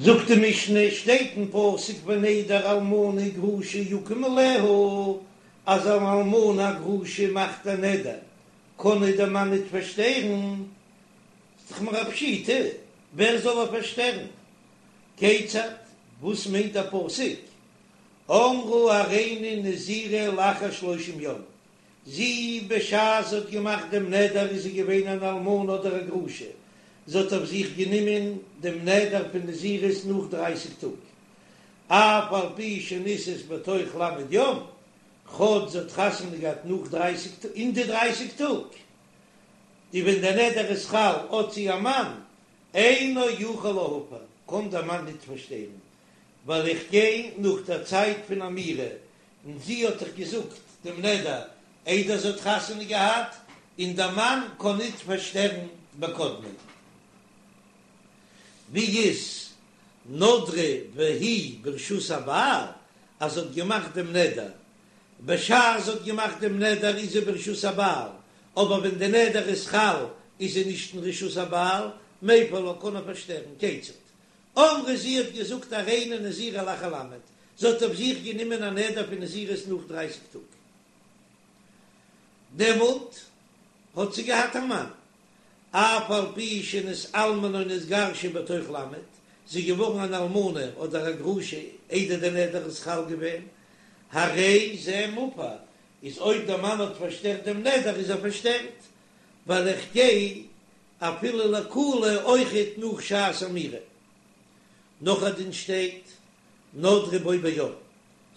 זאגט די משנה, שטייט אין פסוק ונדר אלמנה וגרושה יקום עליה, אז אן אלמנה א גרושה מאכט א נדר, קען איר דער מאן ניט פארשטערן, איז דאך מיר א פשיטא, ווער זאל איר פארשטערן? כיצד? וואס מיינט דער פסוק? אמרה הריני נזירה לאחר שלושים יום, זי בשעת זי האט געמאכט דעם נדר איז זי געווען אן אלמנה אדער א גרושה, זי האט אויף זיך גענומען דעם נדר פון נזירות נאך דרייסיג טאג, אף על פי שנישאת בתוך ל' יום, כאטש זי האט חתונה געהאט נאך דרייסיג טאג, אין די דרייסיג טאג, די ווען דער נדר איז חל האט זי א מאן, אינו יכול להפר, קען דער מאן ניט פארשטערן, ווייל איך גיי נאך דער צייט פון אמירה, און זי האט דאך געזאגט דעם נדר איידער זי האט חתונה געהאט, און דער מאן קען ניט פארשטערן בקודמין. ווי איז נדרה והיא ברשות הבעל, אז זי האט געמאכט דעם נדר, בשעת זי האט געמאכט דעם נדר איז זי ברשות הבעל, אבער ווען די נדר איז חל איז זי נישט אין רשות הבעל, מפר לה קען ער פארשטערן, כיצד? אמרה זי האט געזאגט הריני נזירה לאחר ל', זי האט אויף זיך גענומען א נדר פון נזירות נאך דרייסיג טאג, דעמאלט האט זי געהאט א מאן, אף על פי שנתאלמנה או נתגרשה בתוך ל', זי איז געווארן אן אלמנה אדער א גרושה איידער דער נדר איז חל געווען, הרי זה מופר, איז אויב דער מאן האט פארשטערט דעם נדר איז ער פארשטערט, ווייל איך גיי אפילו לקולא אויכעט נאך שעת אמירה. נאך א דין שטייט, נדרה בו ביום,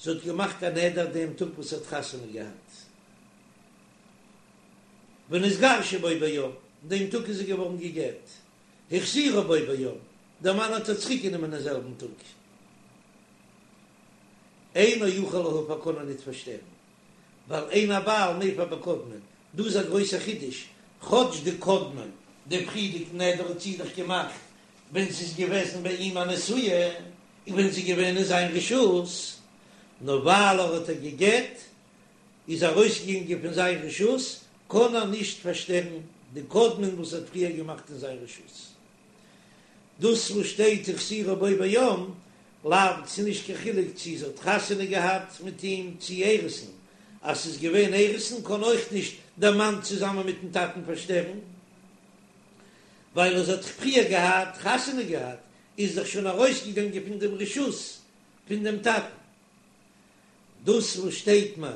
זי האט געמאכט א נדר דעם טאג וואס זי האט חתונה געהאט, ונתגרשה בו ביום, דעם טאג איז זי געווארן גע'גט, החזירה בו ביום, דער מאן האט איר צוריק גענומען אין זעלבן טאג. אינו יכול להפר קען ער ניט פארשטערן, ווייל אין הבעל מפר בקודמין, דא איז א גרויסער חידוש, כאטש די קודמין, די פריערדיגן נדר האט זי דאך געמאכט ווען זי איז געוועזן ביי אים א נשואה, און ווען זי איז געווען אין זיין רשות, נאר ווייל ער האט איר גע'גט, איז ארויסגעגאנגען פון זיין רשות, קען ער נישט פארשטערן די קודמין וואס ער האט פריער געמאכט אין זיין רשות. דאס וואס שטייט החזירה בו ביום, לאו, ס'איז נישט קיין חילוק צי זי האט חתונה געהאט מיט אים צי אירוסין, אז ס'איז געווען אירוסין קען אויך נישט דער מאן צוזאמען מיטן טאטן פארשטערן, ווייל אז זי האט פריער געהאט חתונה געהאט איז דאך שוין ארויסגעגאנגען פון דעם רשות פון דעם טאטן. דאס וואס שטייט מיר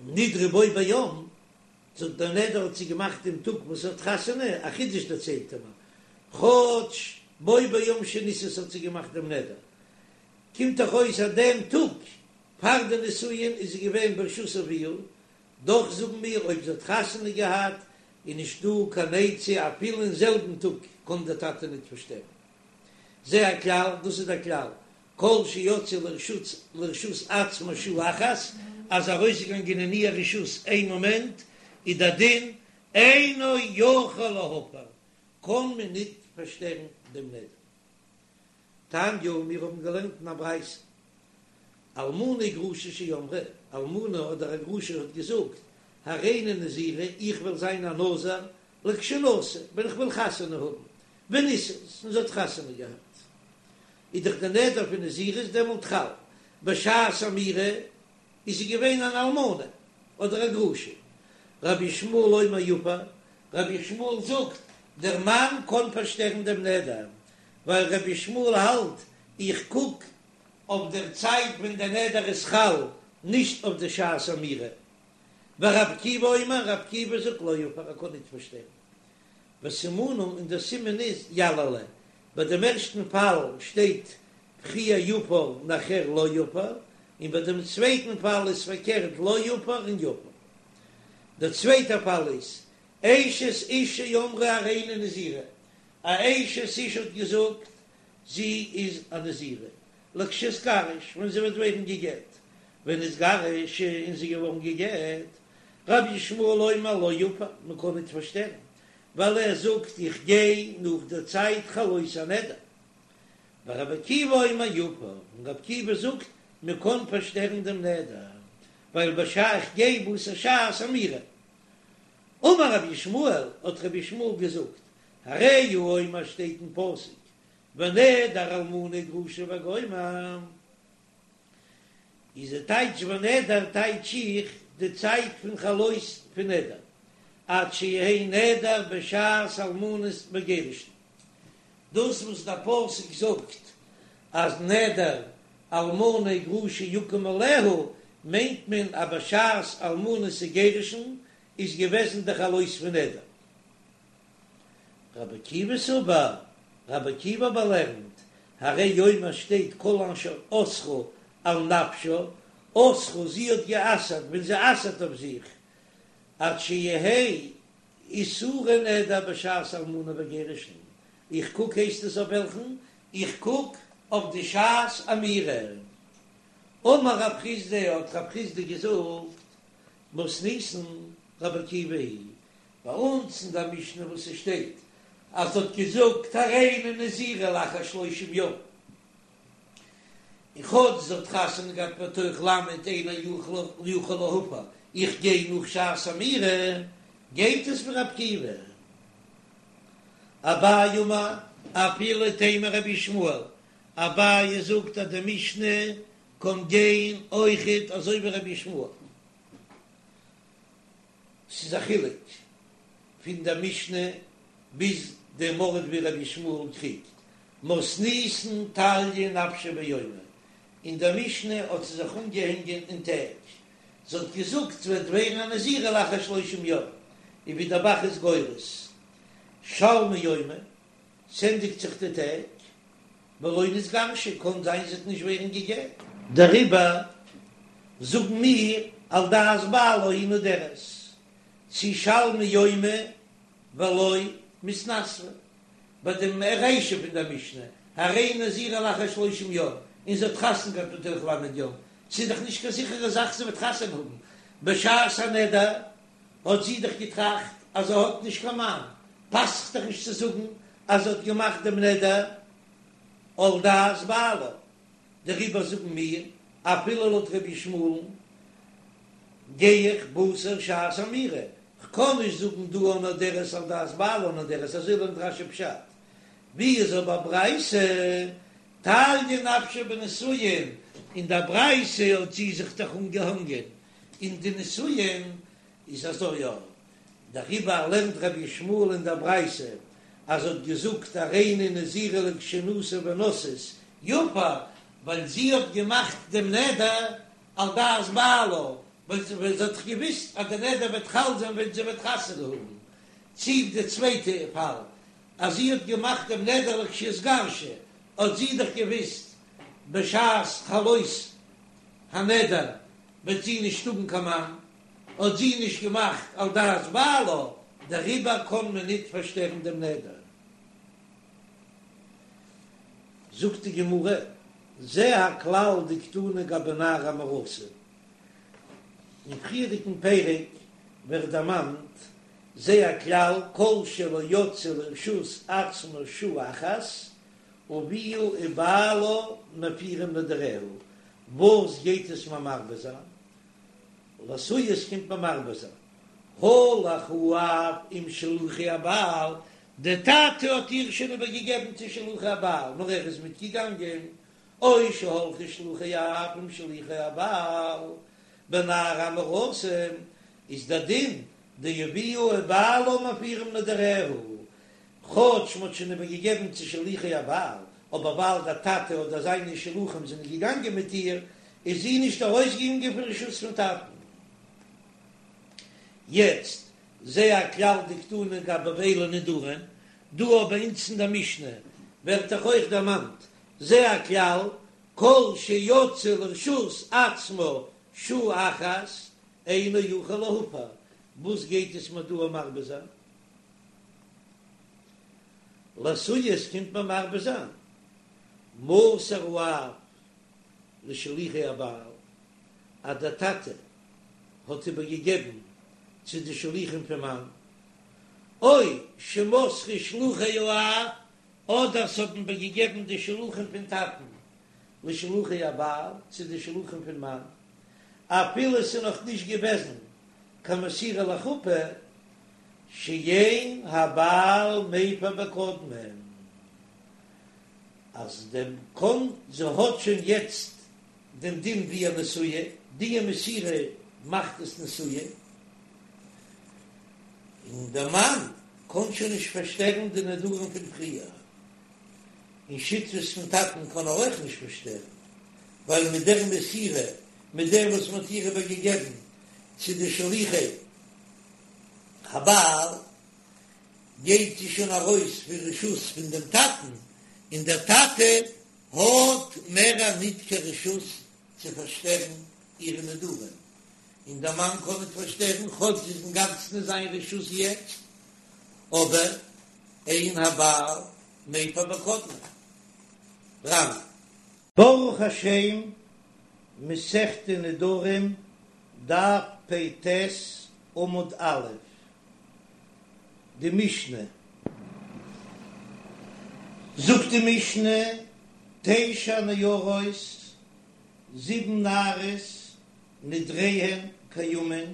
נדרה בו ביום, זאגט דער נדר האט זי געמאכט דעם טאג וואס זי האט חתונה, א חידוש דערציילט ער מיר, כאטש בו ביום שנישאת האט זי געמאכט דעם נדר, קומט דאך אויס אז דעם טאג פאר די נישואין איז זי געווען ברשות אביה, דאך זאגן מיר אויב זי האט חתונה געהאט איז נישט דא קיין עצה אפילו אין זעלבן טאג קען דער טאטע ניט פארשטערן. זה הכלל, דאס איז דער כלל, כל שיצאה לרשות לרשות עצמה שעה אחת, אז ארויסגעגאנגען אין איר רשות איין מאמענט, איז דער דין אינו יכול להפר, קען מען ניט פארשטערן דעם נדר. תניא, מיר האבן געלערנט אין א ברייתא, אלמנה וגרושה שאמרה, אלמנה אדער א גרושה האט געזאגט, הריני נזירה, איך וועל זיין א נזיר לכשאנשא, ווען איך וועל חתונה האבן, ונישאת, און זי האט חתונה געהאט. איז דאך די נדר פון נזירות דעמאלט חל, בשעת אמירה איז זי געווען אן אלמנה אדער א גרושה. רבי ישמעאל אומר יפר, רבי ישמעאל זאגט, דער מאן קען פארשטערן דעם נדר, ווייל רבי ישמעאל האלט, איך קוק אויף דער צייט ווען דער נדר איז חל, נישט אויף די שעת אמירה. ורבי עקיבא אומר, רבי עקיבא זאגט לא יפר, ער קען ניט פארשטערן. וסימנא און דער סימן איז יללה, ביי דעם ערשטן פאל שטייט פריער יפר נאכער לא יפר, און ביי דעם צווייטן פאל איז פארקערט לא יפר און יפר. דער צווייטער פאל איז אשת איש שאמרה הריני נזירה, א אשת איש האט געזאגט זי איז א נזירה, לכשאתגרש, ווען זי וועט ווערן גע'גט, ונתגרשה און זי איז געווארן גע'גט, רבי ישמעאל אומר לא יפר, מען קען ניט פארשטערן, ווייל ער זאגט איך גיי נאך דער צייט חלות הנדר. ורבי עקיבא אומר יפר, און רבי עקיבא זאגט מען קען פארשטערן דעם נדר, ווייל בשעה איך גיי בתר שעת אמירה. אמר רבי ישמעאל, האט רבי ישמעאל געזאגט, הרי הוא אומר שטייט אין פסוק. ונדר אלמנה וגרושה וגומר. איז די טייטש ונדר טייטש איך די צייט פון חלות פון נדר עד שיהא נדר בשעת אלמנות וגירושין. דאס וואס דער פסוק זאגט אז נדר אלמנה וגרושה יקום עליה מיינט מען אז בשעת אלמנות וגירושין איז געוועזן די חלות פון נדר. רבי עקיבא סבר, רבי עקיבא אבער לערנט, הרי הוא אומר שטייט כל אשר אסרה על נפשה, אסרה זי האט גע'אסר'ט ווען זי אסר'ט אויף זיך, עד שיהא איסורי נדר בשעת אלמנה וגירושין, איך קוק הייסט עס אויף וועלכן? איך קוק אויף די שעת אמירה. אמר רב חסדא האט רב חסדא געזאגט, מתניתין רבי עקיבא היא ביי אונז אין דער משנה וואס עס שטייט אז זי האט געזאגט הריני נזירה לאחר שלושים יום, און כאטש זי האט חתונה געהאט בתוך ל' אינו יכול להפר, איך גיי נאך שעת אמירה, גייט עס ווי רבי עקיבא. אביי אמר, אפילו תימא רבי ישמעאל, אביי זאגט אז די משנה קען גיין אויכעט אזוי ווי רבי ישמעאל. ס'איז א חילוק פון דער משנה ביז דעם ארט ווי רבי ישמעאל קריגט, מתניתין תליא נפשה ביומי, אין דער משנה האט זי זיך אנגעהענגען אין טעג, זי האט געזאגט ס'וועט ווערן א נזירה לאחר שלושים יום, און ווי דער ב"ח איז גורס שלמו יומי, ס'ענדיגט זיך די טעג, ולא נתגרשה, קאן זיין זי וועט נישט ווערן גע'גט. דעריבער זאגן מיר על דעת בעלה היא נודרת, צי שלמו יומי ולא מתנסבא, ביי דעם רישא פון דער משנה, הריני נזירה לאחר שלושים יום, און זי האט חתונה געהאט בתוך ל' יום, ס'איז דאך נישט קיין זיכערע זאך זי וועט חתונה האבן, בשעת הנדר האט זי דאך געטראכט אז זי האט נישט קיין מאן, פאסט זיך דאך נישט צו זאגן אז זי האט געמאכט דעם נדר על דעת בעלה, דעריבער זאגן מיר, אפילו לויט רבי ישמעאל'ן גיי איך בתר שעת אמירה, כ'קען נישט זאגן דא הנודרת על דעת בעלה נודרת, אזוי לערנט רש"י פשט, ווי איז אבער ברייתא תליא נפשה בנישואין, אין דער ברייתא האט זי זיך דאך אנגעהאנגען אין די נישואין, איז אזוי יא, דעריבער לערנט רבי ישמעאל אין דער ברייתא אז זי האט געזאגט הריני נזירה לכשאנשא ונשאת יפר, ווייל זי האט געמאכט דעם נדר על דעת בעלה, ווייל זי האט דאך געוואוסט אז דער נדר וועט חל זיין ווען זי וועט חתונה האבן, צי די צווייטע פאל אז זי האט געמאכט דעם נדר לכשאתגרש, האט זי דאך געוואוסט בשעת חלות הנדר וועט זי נישט האבן קיין מאן, האט זי נישט געמאכט על דעת בעלה, דעריבער קען מען ניט פארשטערן דעם נדר. זאגט די גמרא, זה הכלל דקתני גבי נערה המאורסה. אין פריערדיגן פרק ווערט דערמאנט זה הכלל כל שלא יצאה לרשות עצמה שעה אחת, אביה ובעלה מפירים נדריה, וואס גייט עס מיר מרבה זיין? לאתויי עס קומט מיר מרבה זיין, הלך האב עם שלוחי הבעל, דער טאטע האט איר שוין איבער געגעבן צו שלוחי הבעל, נאר ער איז מיט געגאנגען, או שהלכו שלוחי האב עם שלוחי הבעל, בנערה המאורסה איז דער דין דאביה ובעלה מפירים נדריה, כאטש מ'האט שוין איבער געגעבן צו שלוחי הבעל, אבער ווייל דער טאטע אדער זיינע שלוחים זענען געגאנגען מיט איר, איז זי נישט ארויסגעגאנגען פון רשות פון טאטן. יעצט, זה הכלל דקתני גבי אלו נדרים, דא אבער אונז אין דער משנה ווערט דאך אויך דערמאנט זה הכלל, כל שיצאה לרשות עצמה שעה אחת אינו יכול להפר, וואס גייט עס מיר דא מרבה זיין? לאתויי עס קומט מיר מרבה זיין מסר האב לשלוחי הבעל אז דער טאטע האט איבער געגעבן צו די שלוחים פון מאן, או שמסרו שלוחי האב, אדער ס'האבן איבער געגעבן די שלוחים פון טאטן לשלוחי הבעל צו די שלוחים פון מאן, אפילו ס'איז נאך נישט געוועזן קיין מסירה לחופה, שאין הבעל מפר בקודמין. אז דעם קאן זי האט שוין יעצט דעם דין ווי א נשואה, די מסירה מאכט עס נשואה, און דער מאן קען שוין נישט פארשטערן די נדרים פון פריער, און שותפות פון טאטן קען ער אויך נישט פארשטערן, ווייל מיט דער מסירה, מיט דעם וואס מען האט איר איבערגעגעבן צו די שליחי הבעל, גייט זי שוין ארויס פון רשות פון דעם טאטן, און דער טאטע האט מער ניט קיין רשות צו פארשטערן אירע נדרים, און דער מאן קען ניט פארשטערן, כאטש זי איז אינגאנצן אין זיין רשות יעצט, אבער אין הבעל מפר בקודמין. רמ. ברוך השם, מסכת נדרים, דף פ"ט, עמוד א', די משנה. זאגט די משנה, תשע נערות, זיבן נערות, נדריהן קיימין,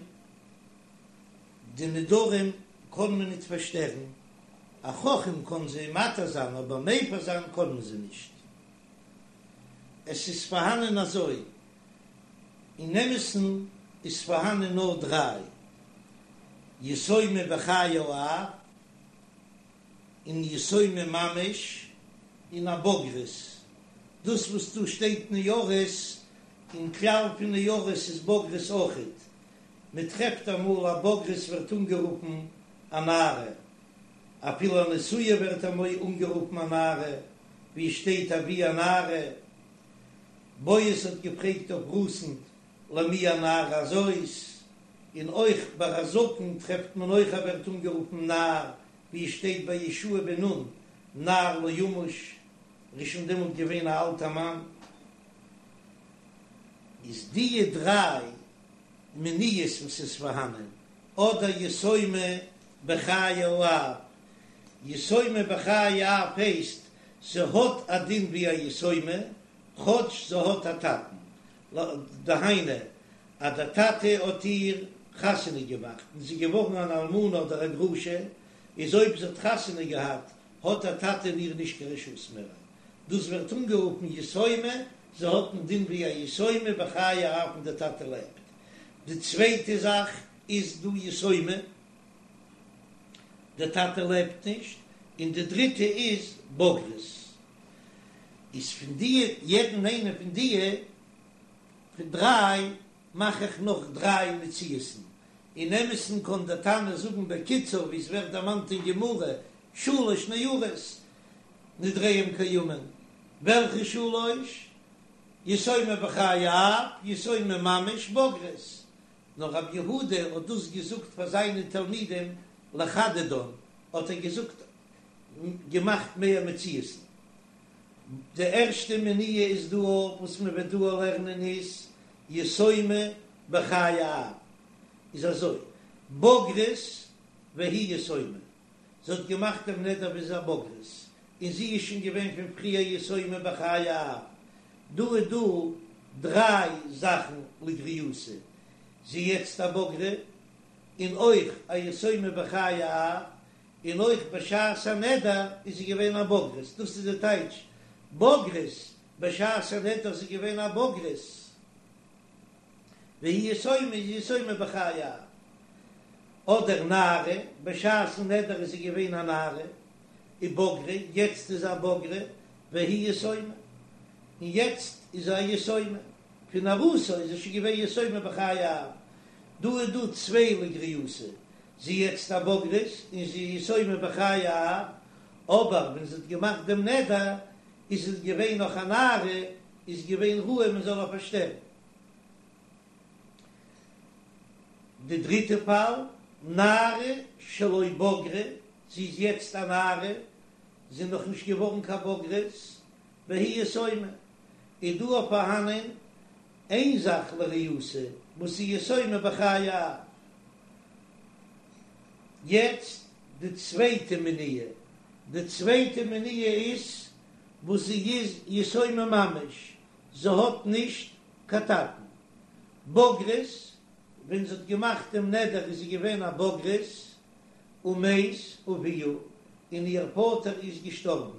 די נדרים קען מען ניט פארשטערן, א חכם קען זיי מתיר זיין אבער מפר זיין קען מען זיי נישט. עס איז פארהאנען אזוי, אין אמת'ן איז פארהאנען נאר דריי, יתומה בחיי האב, און יתומה ממש, און א בוגרת. דאס וואס דא שטייט נערות, אין כלל פון נערות איז בוגרת אויכעט. מען טרעפט אמאל א בוגרת ווערט אנגערופן א נערה, אפילו א נשואה ווערט אמאל אנגערופן א נערה, ווי עס שטייט אבי הנערה. בועז האט געפרעגט אויף רות'ן למי הנערה הזאת, און אויך ביי א זקן טרעפט מען אויך ער ווערט אנגערופן נער, ווי עס שטייט ביי יהושע בן נון נער לא ימוש, ער איז שוין דעמאלט געווען א אלטער מאן. איז דיע דריי מניעות וואס איז פארהאנען, אדער יתומה בחיי האב, יתומה בחיי האב הייסט זי האט א דין ווי א יתומה כאטש זי האט א טאטן, דהיינו אז דער טאטע האט איר חתונה געמאכט און זי איז געווארן אן אלמנה אדער א גרושה, איז אויב זי האט חתונה געהאט האט דער טאטע אין איר נישט קיין רשות מער, דאס ווערט אנגערופן יתומה, זי האט א דין ווי א יתומה בחיי האב ווען דער טאטע לעבט. די צווייטע זאך איז דא יתומה, דער טאטע לעבט נישט, און די דריטע איז בוגרת. איז פון דיע יעדן איינע פון דיע פון דריי מאך איך נאך דריי מציאות'ן. אין אמת'ן קען דער תנא זאגן בקיצור ווי עס ווערט דערמאנט אין גמרא שלש נערות נדריהם קיימין, וועלכע שלש? יתומה בחיי האב, יתומה ממש, בוגרת. נאר רבי יהודה האט דאס געזאגט פאר זיינע תלמידים לחדדן, האט ער געזאגט געמאכט מער מציאות'ן. די ערשטע מניעה איז דא וואס מען וועט דא לערנען איז יתומה בחיי האב, איז אזוי, בוגרת והיא יתומה, זי האט געמאכט דעם נדר ווי זי איז א בוגרת, און זי איז שוין געווען פון פריער יתומה בחיי האב, דא איז דא דריי זאכן לגריעותא, זי יעצט א בוגרה, און אויך א יתומה בחיי האב, און אויך בשעת הנדר איז זי געווען א בוגרת, דאס איז די טייטש בוגרת, בשעת הנדר איז זי געווען א בוגרת, והיא יתומה איז יתומה בחיי האב, אדער נערה, בשעת'ן נדר איז זי געווען א נערה, ובגרה, יעצט איז זי א בוגרה, והיא יתומה, און יעצט איז זי א יתומה, פון נערותה איז זי שוין געווען יתומה בחיי האב, דא איז דא צוויי לגריעותא, זי יעצט א בוגרת און זי איז יתומה בחיי האב, אבער ווען זי האט געמאכט דעם נדר איז זי געווען נאך א נערה, איז געווען ראוי מען זאל איר פארשטערן. די דריטע פאל, נערה שלא בגרה, זי איז יעצט א נערה, זי איז נאך נישט געווארן קיין בוגרת, והיא יתומה, איז דא אויך פארהאנען איין זאך לריעותא וואס איז יתומה בחיי האב. יעצט די צווייטע מניעה, די צווייטע מניעה איז וואס זי איז יתומה ממש, זי האט נישט קיין טאטן. בוגרת, ווען זי האט געמאכט דעם נדר איז זי געווען א בוגרת, ומת אביה, און איר פאטער איז געשטארבן.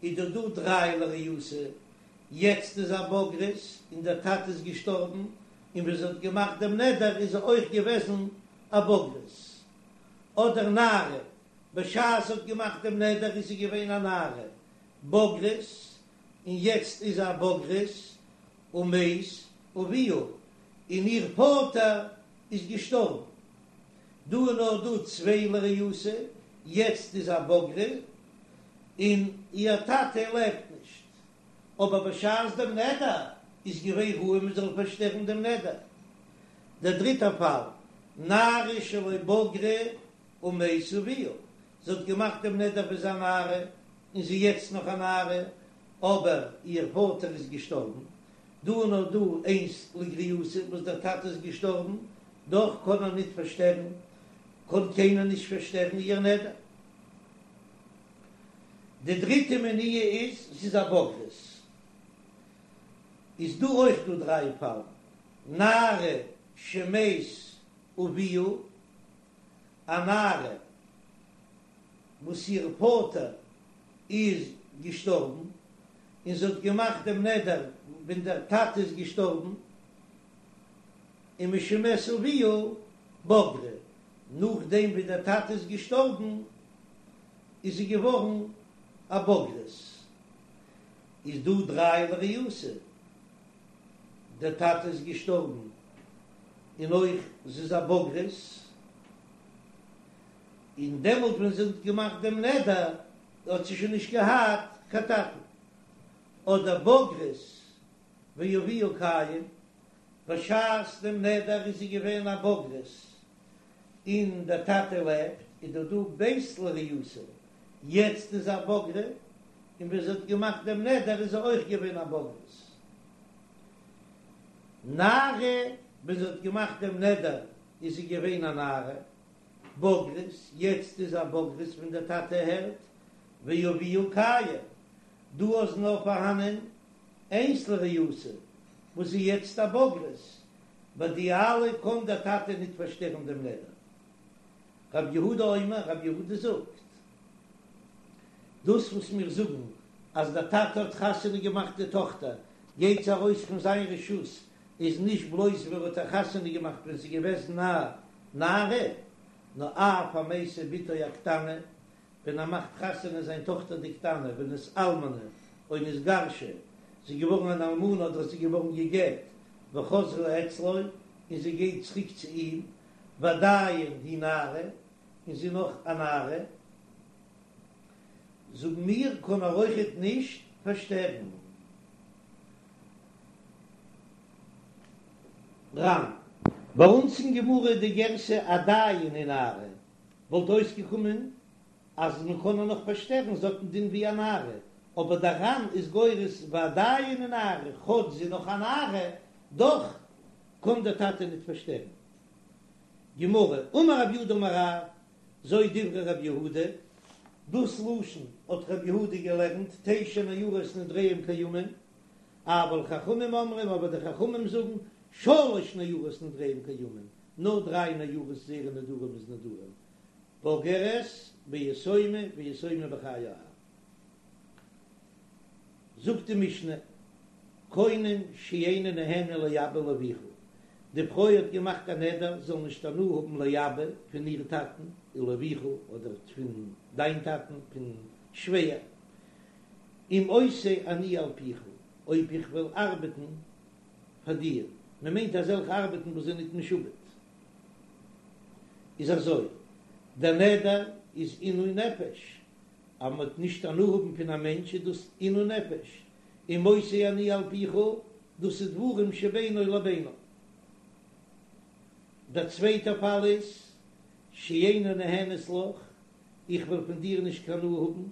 איז דא דא דריי לריעותא, יעצט איז א בוגרת און דער טאטע איז געשטארבן, און ווען זי האט געמאכט דעם נדר איז זי אויך געוועזן א בוגרת. אדער נערה, בשעת זי האט געמאכט דעם נדר איז זי געווען א נערה, בוגרת, און יעצט איז זי א בוגרת, ומת אביה, און איר פאטער איז געשטארבן. דא איז נאר דא צוויי לריעותא, יעצט איז א בוגרת, און איר טאטע לעבט נישט. אבער בשעת דעם נדר איז געווען ראוי מען זאל פארשטערן דעם נדר. דער דריטער פאל, נערה שלא בגרה ומת אביה, זי האט געמאכט דעם נדר ווען זי איז א נערה, און זי איז יעצט נאך א נערה, אבער איר פאטער איז געשטארבן, דא איז נאר דא איינס לגריעותא וואס דער טאטע איז געשטארבן, דאך קען ער ניט פארשטערן, קען קיינער נישט פארשטערן איר נדר. די דריטע מניעה איז, זי איז א בוגרת. איז דא אויך דא דריי פאלן, נערה שמת אביה, א נערה וואס איר פאטער איז געשטארבן, און זי האט געמאכט דעם נדר ווען דער טאטע איז געשטארבן, ומשמת אביה בגרה, נאכדעם ווי דער טאטע איז געשטארבן איז זי געווארן א בוגרת. איז דא דריי לריעותא, דער טאטע איז געשטארבן און אויך זי איז א בוגרת, און דעמאלט ווען זי האט געמאכט דעם נדר האט זי שוין נישט געהאט קיין טאטן, אדער בוגרת ואביה קיים, בשעת דעם נדר איז זי געווען א בוגרת און דער טאטע לעבט, איז דא דא ב' לריעותא, יעצט איז א בוגרת, און ווען זי האט געמאכט דעם נדר איז זי אויך געווען א בוגרת. נערה, ווען זי האט געמאכט דעם נדר איז זי געווען א נערה, בוגרת, יעצט איז א בוגרת ווען דער טאטע הערט, ואביה קיים, דא איז נאר פארהאנען איינס לריעותא וואס איז יעצט א בוגרת, ביי די אלע קען דער טאטע ניט פארשטערן דעם נדר. רב יהודה אומר, רב יהודה זאגט, דאס וואס מיר זאגן אז דער טאטע האט חתונה געמאכט די טאכטער גייט זי ארויס פון זיין רשות, איז נישט בלויז ווען ער האט איר חתונה געמאכט ווען זי איז געוועזן א נערה, נאר אף המשיא בתו הקטנה, ווען ער מאכט חתונה זיין טאכטער די קטנה ונתאלמנה או נתגרשה, זי איז געווארן אן אלמנה אדער זי איז געווארן גע'גט, וחזרה אצלו, און זי גייט צוריק צו אים, ועדיין היא נערה, און זי איז נאך א נערה, זאגן מיר, קען ער אויכעט נישט פארשטערן. ר"ן. ביי אונז אין גמרא איז די גירסא עדיין היא נערה, וואלט אויסגעקומען אז מען קען איר נאך פארשטערן, זי האט דעם דין ווי א נערה, אבער דער ר"ן איז גורס ועדיין היא נערה, כאטש זי איז נאך א נערה, דאך קען דער טאטע ניט פארשטערן. גמרא, אמר רב יהודה אמר רב, זו דברי רב יהודה, דאס לשון האט רב יהודה געלערנט, תשע נערות נדריהם קיימין, אבל חכמים אומרים, אבער די חכמים זאגן, שלש נערות נדריהם קיימין, נאר דריי נערות זייערע נדרים איז נדרים, בוגרת ויתומה ויתומה בחיי האב. זאגט די משנה, קונם שאיני נהנה לאבא ולאביך, די פרוי האט געמאכט א נדר זי זאל נישט הנאה האבן לאבא פון איר טאטן, ולאביך אדער פון דיין טאטן, פון שווער, אם עושה אני על פיך, אויב איך וועל ארבעטן פאר דיר, מען מיינט אזעלכע ארבעטן וואס זענען ניט משועבד, איז אזוי, דער נדר איז עינוי נפש, אז מען וועט נישט הנאה האבן פון א מענטש איז דאס עינוי נפש, אם עושה אני על פיך, דאס איז דברים שבינו לבינה. דער צווייטער פאל איז, שאיני נהנית לך, איך וועל פון דיר נישט קיין הנאה האבן,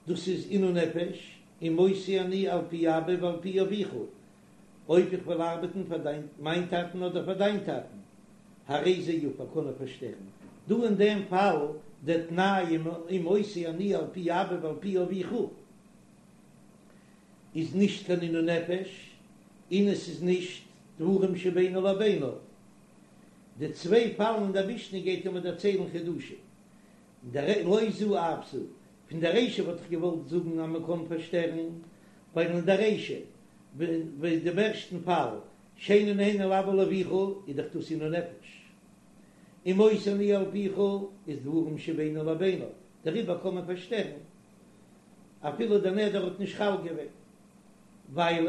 דאס איז עינוי נפש, אם עושה אני על פי אבא ועל פי אביך, אויב איך וועל ארבעטן פאר דיין מיין טאטן אדער פאר דיין טאטן, הרי זה יפר קען ער פארשטערן. דא אין דעם פאל דער תנאי אם עושה אני על פי אבא ועל פי אביך איז נישט קיין עינוי נפש, און עס איז נישט דברים שבינו לבינה. די צוויי פאלן אין דער משנה גייט ער מיר דערציילן חידושים. דער לא זו אף זו. פון דער רישא וואלט איך געוואלט זאגן אז מען קען פארשטערן, ווייל אין דער רישא, ווי דעם ערשטן פאל, שאיני נהנה לאבא ולאביך, איז דאך דאס עינוי נפש. און מוסר אני על פיך איז דברים שבינו לבינה, דעריבער קען מען פארשטערן אפילו דער נדר האט נישט חל געווען, ווייל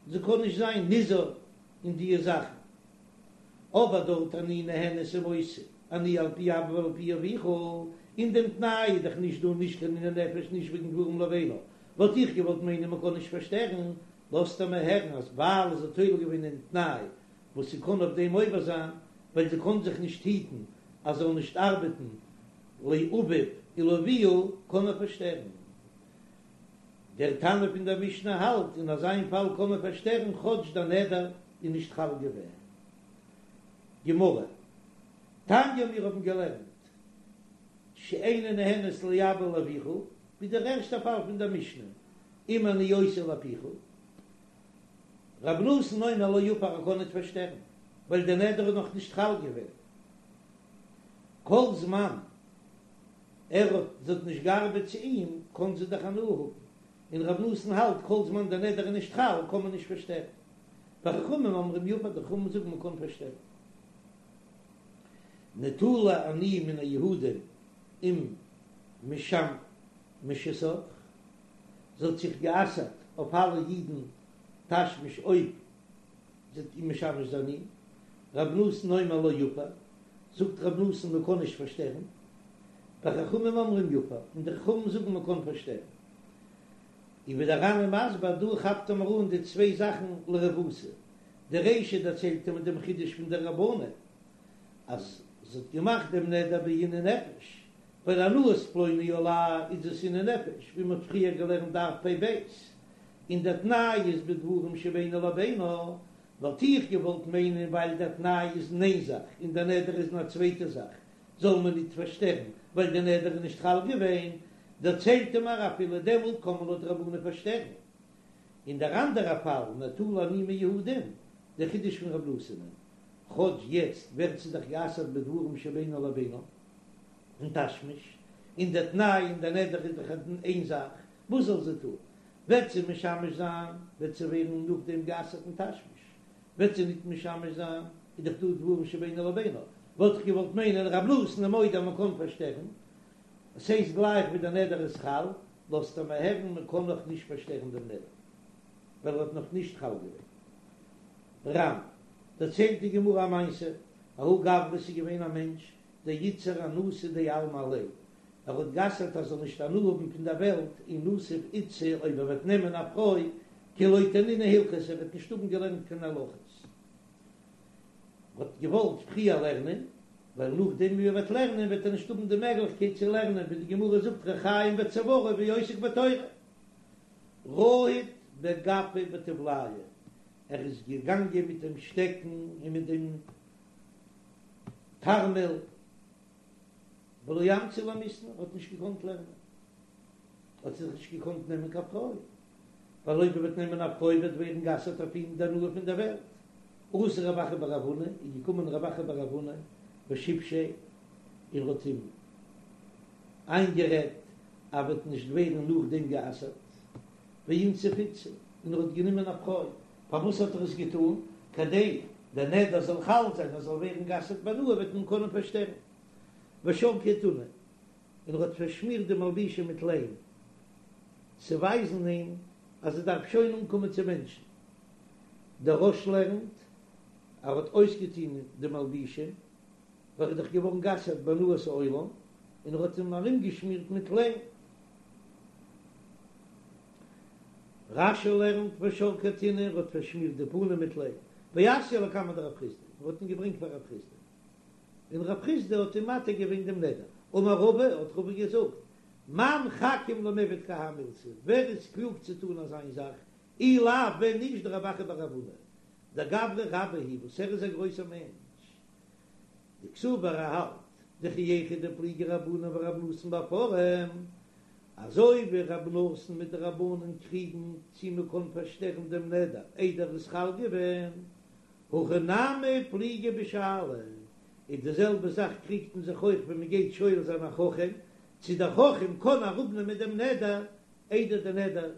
זי קען נישט זיין נזהר אין דיע זאכן. אבער דארט אני נהנית ומוסר אני על פי אבא ועל פי אביך, אין דעם תנאי איז דאך נישט דא נישט קיין עינוי נפש נישט וועגן דברים לבינה, וואלט איך געוואלט מיינען מ'קען נישט פארשטערן, לאזט ער מיר הערן אז ווייל זי האט תולה געווען אין תנאי וואס זי קען אויף דעם עובר זיין, ווייל זי קען זיך נישט היטן אז זי זאל נישט ארבעטן לאביו ולאביה, קען מען פארשטערן. דער תנא פון דער משנה האלט אין אזא איין פאל קען מען פארשטערן כאטש דער נדר איז נישט חל געווען. גמרא, תניא מיר האבן געלערנט שאיני נהנית לאבא ולאביך, ווי דער ערשטער פאל פון דער משנה, אם אני עושה לפיך, רבי נתן אומר לא יפר ער קען ניט פארשטערן, ווייל דער נדר איז נאך נישט חל געווען. כל זמן ער האט זי האט נישט געארבעט צו אים, קען זי דאך הנאה האבן, און רבי נתן האלט כל זמן דער נדר איז נישט חל קען מען נישט פארשטערן. וחכמים אומרים יפר, די חכמים זאגן מען קען פארשטערן. נטולה אני מן היהודים אם משמשתך, זי האט זיך גע'אסר'ט אויף אלע אידן תשמיש אויב זי וועט אים משמש זיין אים, רבי נתן אומר לא יפר, זאגט רבי נתן מען קען נישט פארשטערן, וחכמים אומרים יפר, און די חכמים זאגן מען קען פארשטערן. און ווי דער ר"ן איז מסביר דא כאפט ער מיר אן די צוויי זאכן לרבותא, די רישא דערציילט ער מיט דעם חידוש פון די רבנן אז זי האט געמאכט דעם נדר בעינוי נפש, ווייל הנאת פלוני עלי איז דאס עינוי נפש, ווי מ'האט פריער געלערנט דף פ"ב, און דער תנאי איז בדברים שבינו לבינה, וואלט איך געוואלט מיינען ווייל דער תנאי איז אין איין זאך און דער נדר איז אין א צווייטע זאך, זאל מען ניט פארשטערן ווייל דער נדר איז נישט חל געווען, דערציילט ער מיר אפילו דעמאלט קען מען לויט רבנן פארשטערן. אין דער אנדערע פאל נטולה אני מיהודים, דער חידוש פון רב נתן'ען, כאטש יעצט ווערט זי דאך גע'אסר'ט בדברים שבינו לבינה, אין תשמיש, און דער תנאי און דער נדר איז דאך איין זאך, וואס זאל זי טון? וועט זי משמש זיין, וועט זי ווערן נאכדעם גע'אסר'ט אין תשמיש, וועט זי ניט משמש זיין, איז דאך דא דברים שבינו לבינה, וואלט איך געוואלט מיינען רב נתן איז מודה אז מען קען פארשטערן, עס הייסט גלייך ווי דער נדר איז חל, לאזט ער מיר הערן מען קען נאך נישט פארשטערן דעם נדר, ווייל ער האט נאך נישט חל געווען. ר"ן, דערציילט די גמרא א מעשה, ההוא גברא ס'איז געווען א מענטש, דאיתסר הנאתא דעלמא עליה, ער האט גע'אסר'ט אז ער זאל נישט הנאה האבן פון דער וועלט אי נסיב איתתא אויב ער וועט נעמען א פרוי כי לא תנינא הלכתא ער וועט נישט האבן געלערנט קיין הלכות. ער האט געוואלט פריער לערנען, ווייל נאכדעם ווי ער וועט לערנען וועט ער נישט האבן די מעגליכקייט צו לערנען, ווי די גמרא זאגט ריחיים בצוארו ועוסק בתורה. רהיט בגפא ובטבליא, ער איז געגאנגען מיט דעם שטעקן און מיט דעם תרמיל, ולא אמצי למיתנא, ער האט נישט געקאנט לערנען, האט זיך נישט געקאנט נעמען קיין פרוי, ווייל אויב ער וועט נעמען א פרוי וועט ווערן גע'אסר'ט אויף אים די הנאה פון דער וועלט. אתא רב אחא בר רב הונא, איז געקומען רב אחא בר רב הונא ושיבשיה, און האט אים איינגערעדט אז וועט נישט ווערן נאכדעם גע'אסר'ט, ואינסיב איתתא, און ער האט גענומען א פרוי. פארוואס האט ער עס געטאן? כדי דער נדר זאל חל זיין, ער זאל ווערן גע'אסר'ט בהנאה, וועט מען קענען פארשטערן. ושרקיה טינא, און ער האט פארשמירט די מלבושים מיט ליים, צו ווייזן אים אז ער דארף שוין אנקומען צו מענטשן. דער רא"ש לערנט, ער האט אויסגעטון די מלבושים, ווייל ער איז דאך געווארן גע'אסר'ט בהנאת העולם, און ער האט אים ארומגעשמירט מיט ליים. רש"י לערנט ושרקיה טינא, ער האט פארשמירט די פנים מיט ליים. ואתייה לקמיה דרב חסדא, ער האט אים געברענגט פאר רב חסדא. און רב חסדא האט אים מתיר געווען דעם נדר. אמר רבא, האט רבא געזאגט, מאן חכים למיעבד כי האי מילתא, ווער איז קלוג צו טון אזא איין זאך, אי לאו ווען נישט דרב אחא בר רב הונא, דגברא רבה הוא, וואס ער איז א גרויסער מענטש. דקסבר ער האלט, דכי היכי דפליגי רבנן ורב נתן בהפרה, אזוי ווי רב נתן מיט די רבנן קריגן צי מען קען פארשטערן דעם נדר איידער איז חל געווען, הכא נמי פליגי בשאלה, איז די זעלבע זאך קריגט מען זיך אויך ווען מען גייט שואל זיין א חכם. צו דער חכם קען אראפנעמען דעם נדר איידער דער נדר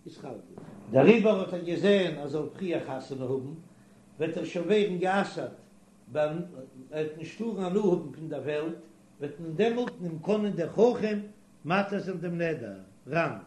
איז חל געווארן. דעריבער האט ער געזען אז זאל פריער חתונה האבן, וועט ער שוין ווערן גע'אסר'ט, ער וועט נישט טארן הנאה האבן פון דער וועלט, וועט מען דעמאלט אים קענען דער חכם מתיר זיין דעם נדר. ר"ן.